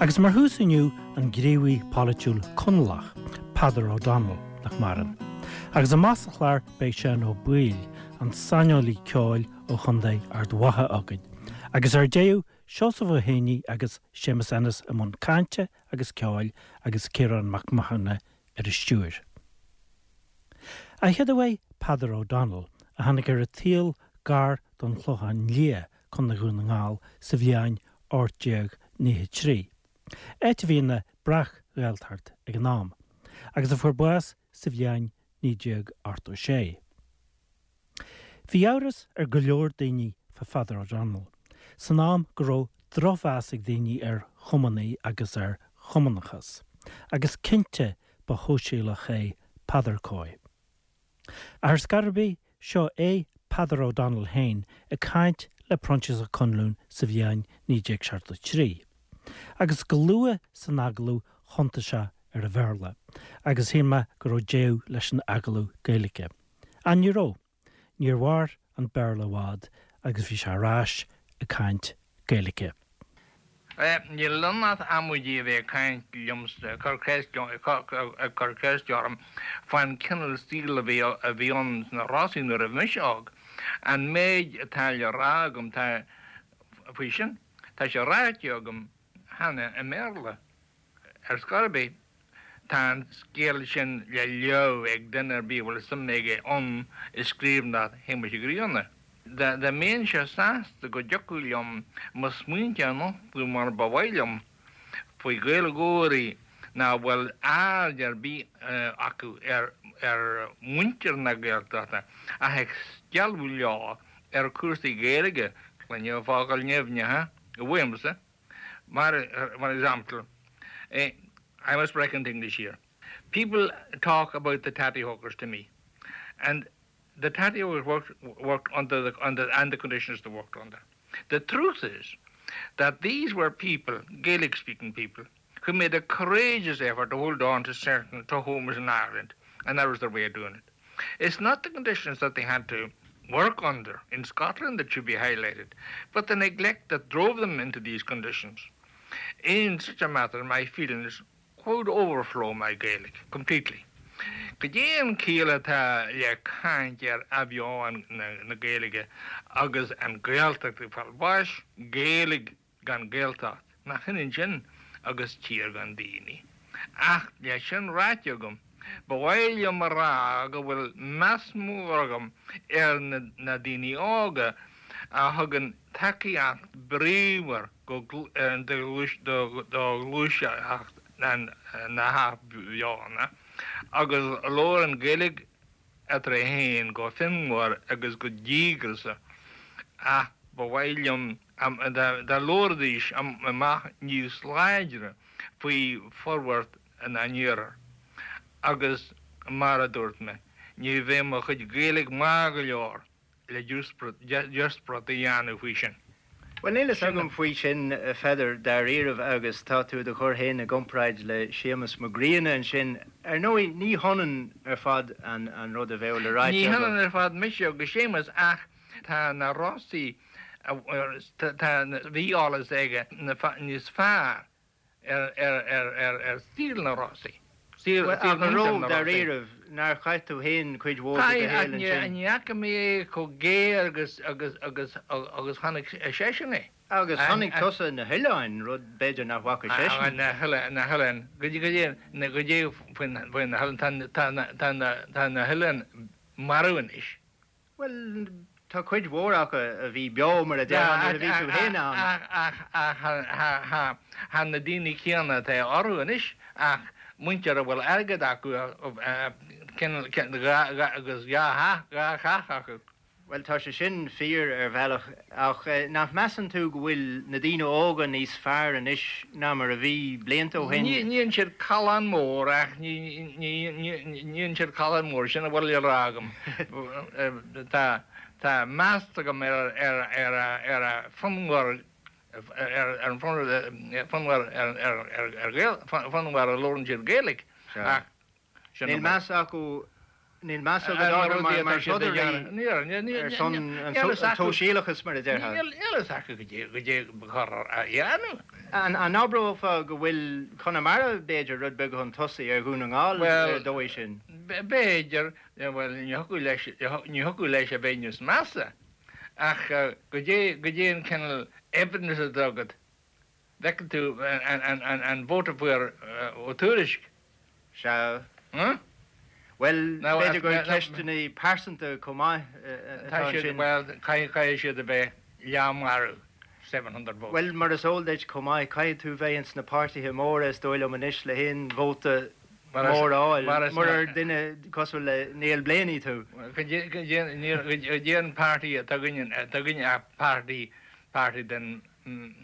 Agus mar thús inniu, an gníomhaí polaitiúil Conallach, Peadar O'Donnell, nach maireann. Agus amach sa chlár beidh Seán Ó Baoill, an saineolaí ceoil ó Chontae Ard Mhacha againn. Agus ar deireadh, Seosamh Ó Héanaí agus Séamus Ennis i mbun cainte agus ceoil agus Ciarán Mac Mathúna ar an stiúir. An chéad uaidh Peadar O'Donnell, a tháinig ar an tsaol gar don Chlochán Liath, Contae Dhún na nGall, sa bhliain 1893, áit a bhí ina breac-Ghaeltacht ag an am, agus a fuair bás sa bhliain 1986. Bhí amhras ar go leor daoine fá Pheadar O'Donnell san am go raibh drochmheas ag daoine ar chumannaigh agus ar chumannachas, agus cinnte ba shóisialach é Peadar cóir. Ach ar scor ar bith, seo é Peadar O'Donnell féin ag caint le Proinsias Ó Conluain sa bhliain 1973. Agus go luath san agallamh thiontaigh sé ar an Bhéarla, agus shíl mé go raibh deireadh leis an agallamh Gaeilge. Ach ní raibh. Níor mhair an Béarla i bhfad agus bhí sé ar ais ag caint Gaeilge. Níl ann ach amaidí a bheith ag caint liomsa, ag cur ceiste orm fán cineál saoil a bhí ann sna Rosaí nuair a bhí mise óg. An méid atá le rá agam tá faoi sin, tá sé ráite agam cheana i mBéarla. Ar scor ar bith, tá an scéal sin le léamh ag duine ar bith a bhfuil suim aige ann i scríbhneoireacht Shéamuis Uí Ghrianna. Dá mbeinnse sásta go dtiocfadh liom mo smaointe a nochtadh mar ba mhaith liom faoi Ghaeilgeoirí nach bhfuil aird ar bith acu ar mhuintir na Gaeltachta ach ag stealladh leo ar chúrsaí Gaeilge, cluinim focail nimhneacha uaimse. Mar for example, I must break into English here. People talk about the tattie hokers to me and the tattie hokers worked, worked under the, under, and the conditions they worked under. The truth is that these were people, Gaelic-speaking people, who made a courageous effort to hold on to certain to homes in Ireland, and that was their way of doing it. It's not the conditions that they had to work under in Scotland that should be highlighted, but the neglect that drove them into these conditions. In such a matter, my feelings could overflow my Gaelic completely. Cad é an chiall atá le caint ar athbheochan na Gaeilge agus an Ghaeltacht ag fáil bháis, Gaeilge gan Gaeltacht, nach ionann sin agus tír gan daoine. Ach le sin ráite agam, ba mhaith liom a rá go bhfuil meas mór agam ar na daoine óga a thugann tacaíocht bríomhar do ghluaiseacht na hathbheochana agus a labhrann Gaeilge eatarthu féin go fonnmhar agus go díograiseach ach ba mhaith liom dá labhróidís amach níos láidre faoi forbairt an iarthair. Agus mar a dúirt mé, ní bheidh mo chuid Gaeilge maith go leor le díospóireacht a dhéanamh faoi sin. Bhuel, níl fhios agam faoi sin, a Pheadair, dáiríribh, agus tá tú i do chur féin i gcomparáid le Séamus Mac Grianna ansin. Ar ndóigh, ní hionann ar fad an rud a bheadh le ráite Ní hionann ar fad mise agus Séamus ach tá na Rosaí, tá, bhí eolas aige níos fearr ar saol na Rosaí. Bhuel, ach an raibh, dáiríribh, nár chaith tú féin cuid mhór de do shaol ansin? Ní fhaca mé é chomh géar agus agus agus agus chonaic seisean é. Agus chonaic tusa na hoileáin, rud b'fhéidir nach bhfaca seisean. Na hoileáin, goidé faoi na hoileáin, tá na hoileáin marbh anois. Bhuel, tá cuid mhór acu a bhí beo, mar a déarfá, nuair a bhí tú féin ann. Ach tá na daoine céanna atá orthu anois, ach muintir a bhfuil airgead acu agus dhá theach acu. Bhuel, tá sé sin fíor ar bhealach, ach nach measann tú go bhfuil na daoine óga níos fearr anois ná mar a bhí blianta ó shin? Ní dhéanann siad callán mór ach ní dhéanann siad callán mór, sin a bhfuil le rá agam. Tá tá meas agam ar ar ar ar a fonnmhar ar an fonnmhar ar ar ar Ghael fonnmhar a labhrann siad Gaeilge ach sin Níl meas acu Níl meas agat orthu mar mar throdairí ar son an tsóisialachais mar a déarfá. Níl fhios acu goidé ba chóir a dhéanamh. An abrófá go bhfuil Conamara, b'fhéidir, rud beag chun tosaigh ar Dhún na nGall ar an dóigh sin? B'fhéidir, bhuel, ní thiocfadh leis, ní thiocfadh leis a bheith níos measa, ach goidé, goidé an cineál evidence atá agat Bhfeiceann tú an vóta a fuair Ó Tuairisg? Sea. Bhuel, b'fhéidir gur ceisteanna pearsanta chomh maith atá ansin. Bhuel, caithfidh siad a bheith leathmharbh, 700 votes. Bhuel, mar is eol duit chomh maith, caithfidh tú bheith ins na páirtithe móra is dóigh liom anois le haon vóta mór a fháil, murar duine cosúil le Niall Blaney tú. Goidé an páirtí atá againne, atá againne ach páirtí, páirtí den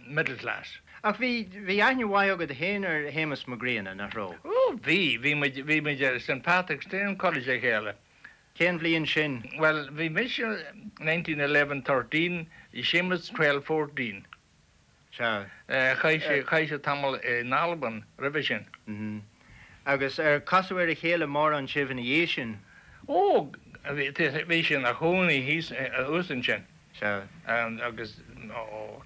middle class. Ach bhí, bhí aithne mhaith agat fhéin ar Shéamus Mac Grianna, nach raibh? Ó, bhí, bhí muid, bhí muid ar St. Patrick's Training College le chéile. Cén bhliain sin? Bhuel, bhí mise 1911, 13, bhí Séamus 12, 14. Sea. Chaith sé, chaith sé tamall in Albain roimhe sin. Mm. Agus ar casadh ar a chéile mórán sibh ina dhiaidh sin? Ó, bhí, bhí sé ina chónaí thíos, thuas ansin. Sea. Agus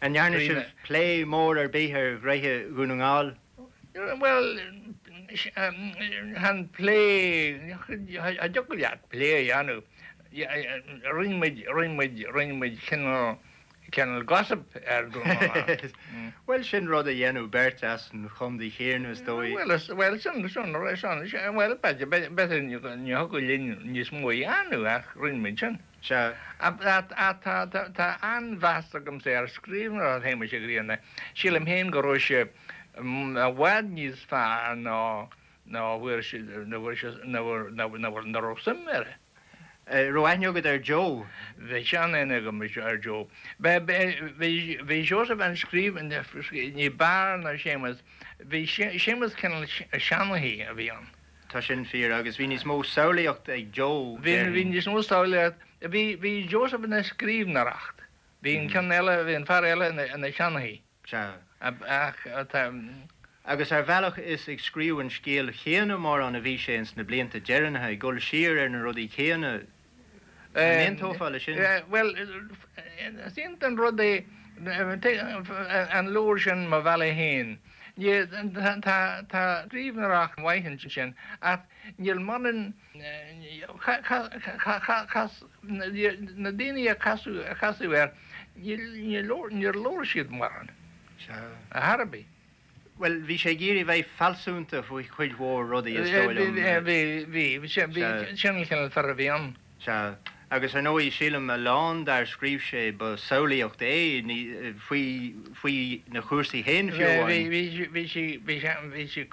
An ndearna sibh plé mór ar bith ar ghnoithe Dhún na nGall? Bhuel, chan plé, cha dtiocfadh leat plé a dhéanamh. Rinne muid, rinne muid, rinne muid cineál, cineál gossip ar Dhún na nGall. Bhuel, sin rud a dhéanadh beirt as an chontae chéanna, is dóigh. Bhuel, bhuel, sin, sin, sin, bhuel, b'fhéidir, b'fhéidir ní thiocfadh linn níos mó a dhéanamh ach rinne muid sin. Sea. Tá an-mheas agamsa ar scríbhneoireacht Shéamuis Uí Ghrianna. Sílim féin go raibh sé i bhfad níos fearr ná ná bhfuair sé ná bhfuair sé ná ná raibh suim air. Raibh aithne agat ar Joe? Bhí sean-aithne agam ar Joe. Bhí bhí Seosamh an scríbhneoir ní b'fhearr ná Séamus. Bhí Séamus cineál seanchaí a bhí ann. Tá sin fíor, agus bhí níos mó samhlaíocht ag Joe, Bhí, bhí níos mó samhlaíocht, bhí, bhí Joseph ina scríbhneoireacht, bhí an ceann eile, bhí an fear eile ina, ina sheanchaí. Sea. Ach tá. Agus ar bhealach is ag scríobh an scéil chéanna mórán a bhí sé ins na blianta deireanacha, ag dul siar ar na rudaí céanna. An aontófá leis sin? Bhuel, is iontach an rud é an leabhar sin Mo Bhealach Féin. Tá scríbhneoireacht mhaith ansin ach níl mórán, na daoine a casadh air, níor labhair siad mórán ar chor ar bith. Bhuel, bhí sé ag iarraidh bheith fealsúnta faoi chuid mhór rudaí, is dóigh liom. Bhí, bhí, bhí. Sin an cineál fear a bhí ann. Sea. Agus ar ndóigh, sílim, a lán dár scríobh sé, ba samhlaíocht é, ní, faoi, faoi na chúrsaí féin fiú amháin. Bhí, bhí, bhí sé, bhí sé, bhí sé,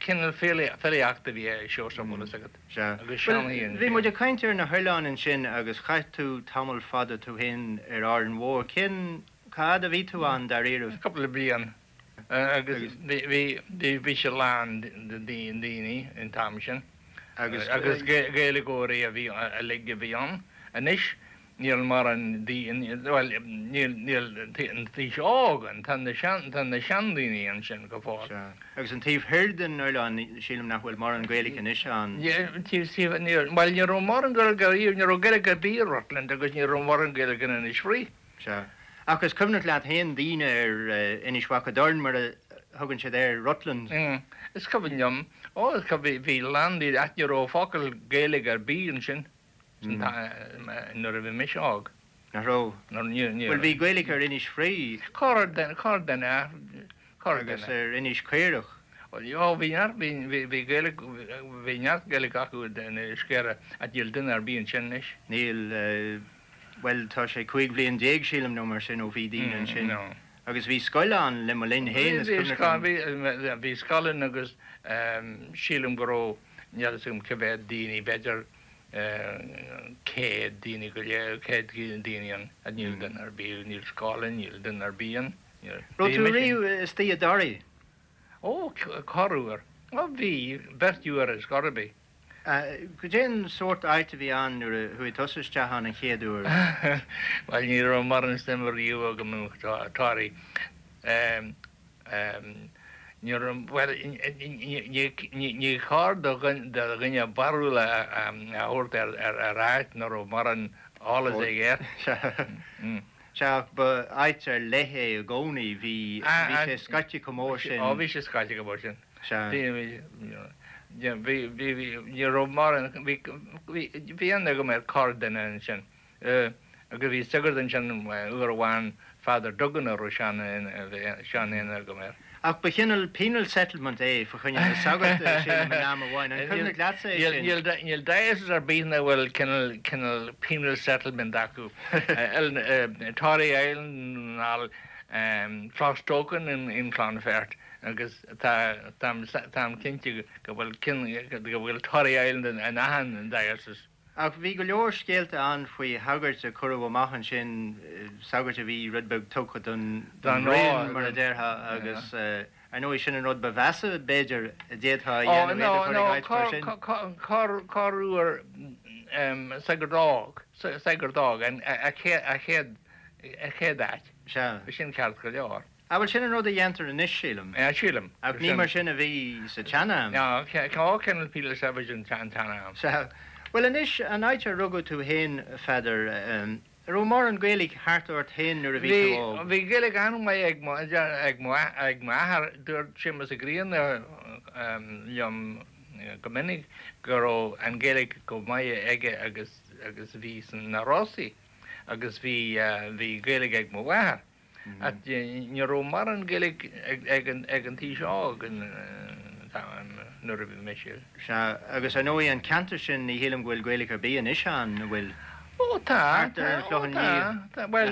cineál filíochta a bhí i Seosamh, bhfuil fhios agat. Sea. Agus seanchaí ansin. Bhí muid ag caint ar na hoileáin ansin agus chaith tú tamall fada tú féin ar Árainn Mhór. Cén Cá fhad a bhí tú ann, dáiríribh? Cúpla bliain. Agus bhí, bhí sé lán de daoine an t-am sin. Agus Gaeilgeoirí a bhí, uilig a bhí ann. Anois níl mórán daoine, bhuel, níl, níl an t-aos óg ann, tá na sean, tá na seandaoine ansin go fóill. Sea. Agus an taobh thoir den oileán, sílim nach bhfuil mórán Gaeilge anois ann. Taobh, níl, bhuel ní raibh mórán Gaeilge ariamh, ní raibh Gaeilge ar bith i Rutland agus ní raibh mórán Gaeilge in Inis Fraoich. Sea. Ach is cuimhneach leat féin daoine ar Inis Mhac a' Doirn, mar a thugann siad air, Rutland. Is cuimhin liom. Ó, is cuimhin, bhí a lán daoine, ach ní raibh focal Gaeilge ar bith ansin nuair a bhí mise óg. Nach raibh? Ní raibh. Bhuel, bhí Gaeilge ar Inis Fraoich. Corr-dhuine, corr-dhuine, corr-dhuine. Agus ar Inis Caorach. Ó, bhí neart, bhí, bhí Gaeilge, bhí neart Gaeilge acu in Inis Caorach, ach níl duine ar bith ansin anois. Níl. Bhuel, tá sé 15 bhliain, sílim, nó mar sin ó bhí daoine ansin. Agus bhí scoil ann le mo linn féin, is cuimhneach liom. Bhí scoil ann agus sílim go raibh, níl fhios agam cé mhéad daoine, b'fhéidir 100 daoine go leith, 100 daoine ann. Níl duine ar bith, níl scoil ann, níl duine ar bith ann. Raibh tú riamh istigh i dToraí? Ó, corruair. Ó, bhí, beirt uair ar scor ar bith. Cad é an sórt áit a bhí ann nuair a chuaigh tusa isteach ann an chéad uair? Bhuel, ní raibh mórán suim riamh agam i Toraigh. Ní raibh, bhuel, ní chóir do dhuine barúil a thabhairt ar áit nach raibh mórán eolas aige air. Sea, ach ba áit ar leith é i gcónaí, bhí, bhí sé scoite chomh mór sin. Ó, bhí sé scoite chomh mór sin. Sea. Bhí, bhí, bhí, bhí, bhí, ní raibh mórán, bhí, bhí, bhí aithne agam ar corrdhuine ansin. Agus bhí sagart ansin uair amháin, Father Duggan a raibh sean-aithne agam air. Ach ba chineál penal settlement é fa choinne na sagart, sílim, in am amháin. An cuimhneach leatsa é sin? Níl diocese ar bith nach bhfuil cineál penal settlement acu. Tory Island nó Clostoken in Clonfert agus táim cinnte go bhfuil Tory Island in achan diocese. Ach bhí go leor scéalta ann faoi shagairt a cuireadh amach ansin, sagairt a bhí rud beag tugtha don bhroinn, mar a déarfá, agus ar ndóigh sin an rud ba mheasa, b'fhéidir, a d'fhéadfá a dhéanamh, iad a chur ag áit mar sin. Corruair sagart óg, sagart óg, an chéad áit. Sea. Sin ceart go leor. Ah, bhuel, sin an rud a dhéantar anois, sílim. Yeah, sílim. Ach ní mar sin a bhí sa tsean-am. No, cineál penal servitude an tsean-am. Sea. Bhuel, anois, an áit ar rugadh tú fhéin, a Pheadair, an raibh mórán Gaeilge thart ort fhéin nuair a bhí tú óg? Bhí Gaeilge an-mhaith ag mo, ag mo, ag m'athair. Dúirt Séamus Ó Grianna liom go minic go raibh an Ghaeilge go maith aige agus, agus a bhí sna Rosaí agus bhí, bhí Gaeilge ag mo mháthair. Ach ní raibh mórán Gaeilge ag an aois óg nuair a bhí mise. Sea, agus ar ndóigh an ceantar sin ní shílim go bhfuil Gaeilge ar bith anois ann, an bhfuil? Ó tá, Thart ar an Chlochán Liath. tá, bhuel,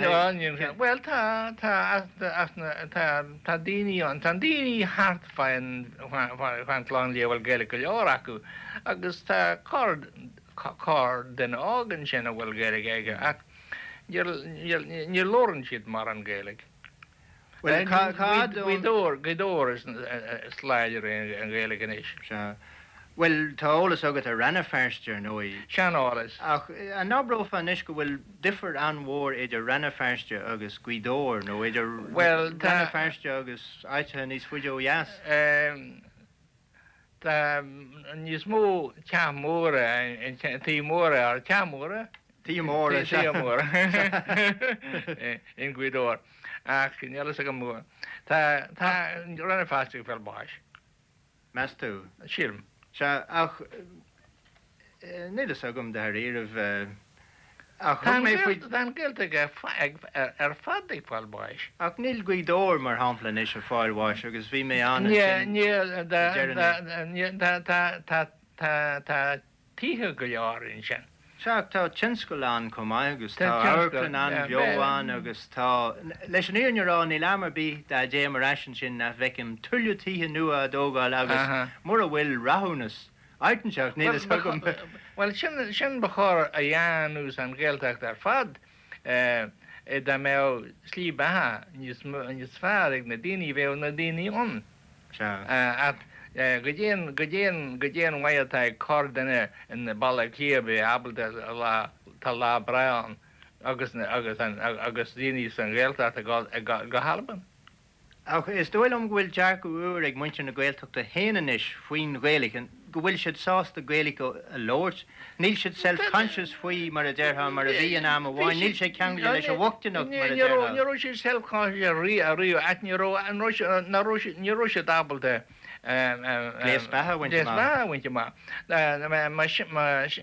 bhuel tá, tá, tá, tá daoine ann, tá daoine thart fán Chlochán Liath a bhfuil Gaeilge go leor acu agus tá corr, corr-duine óg ansin a bhfuil Gaeilge aige ach Ní labhrann siad mórán Gaeilge. Bhuel, cá fhad Gaoth Dobhair, Gaoth Dobhair is láidre an Ghaeilge anois. Sea. Bhuel, tá eolas agat ar Rann na Feirste, ar ndóigh. Sean-eolas. Ach an abrófá anois go bhfuil difear an-mhór idir Rann na Feirste agus Gaoth Dobhair, nó idir Bhuel, tá. Rann na Feirste agus áiteacha níos faide ó dheas? Tá níos mó teach móra, tithe móra, teach móra? Tithe móra, sea. Tithe móra in Gaoth Dobhair. Ach níl a fhios agam, tá, tá Rann na Feirste ag fáil bháis. Meas tú? Sílim. Sea, ach níl a fhios agam dáiríribh. Ach thug mé faoi. Tá an Ghaeltacht ar fad ag fáil bháis. Ach níl Gaoth Dobhair, mar shampla, anois ag fáil bháis agus bhí mé ann ansin Níl, le deireanas. tá, tá, tá tithe go leor ansin. Sea, ach tá tionscal ann chomh maith agus tá amharclann an-bheo ann agus tá, leis an fhírinne a rá, níl am ar bith dá dtéim ar ais ansin nach bhfeicim tuilleadh tithe nua á dtógáil agus mura bhfuil rathúnas Áit inteacht, níl fhios agam. Bhuel, sin, sin ba chóir a dhéanamh san Ghaeltacht ar fad, dá mbeadh slí beatha níos, níos fearr ag na daoine, bheadh na daoine ann. Sea. Ach goidé an, goidé an, goidé an mhaith atá ag corrdhuine i mBaile Átha Cliath a bheith ábalta lá, tá lá breá ann agus, agus an, agus daoine san Ghaeltacht ag dul, ag dul go hAlbain. Ach is dóigh liom go bhfuil dearcadh úr ag muintir na Gaeltachta féin anois faoin Ghaeilge, go bhfuil siad sásta Gaeilge a labhairt. Níl siad self-conscious faoi, mar a déarfá, mar a bhí in am amháin. Níl sé ceangailte leis an bhochtaineacht, mar a déarfá. Ní raibh siad self-conscious riamh, ach ní raibh, ní raibh siad ábalta gléas beatha a bhaint amach. Gléas beatha a bhaint amach.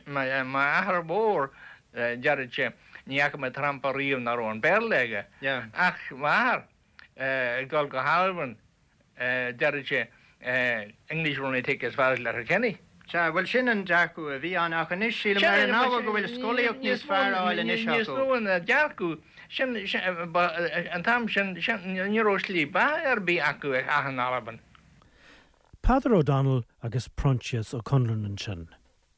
M'athair mór, deireadh sé, ní fhaca mé trampa riamh nach raibh an Béarla aige. Ach m'athair, ag dul go hAlbain, deireadh sé, English will only take you as far as Letterkenny. Sea, bhuel sin an dearcadh a bhí ann ach anois sílim ar an ábhar go bhfuil scolaíocht níos fearr á fháil anois acu. Níos mó ná dearcadh, sin, an t-am sin, ní raibh slí beatha ar bith acu ach in Albain. Peadar O'Donnell agus Proinsias Ó Conluain ansin.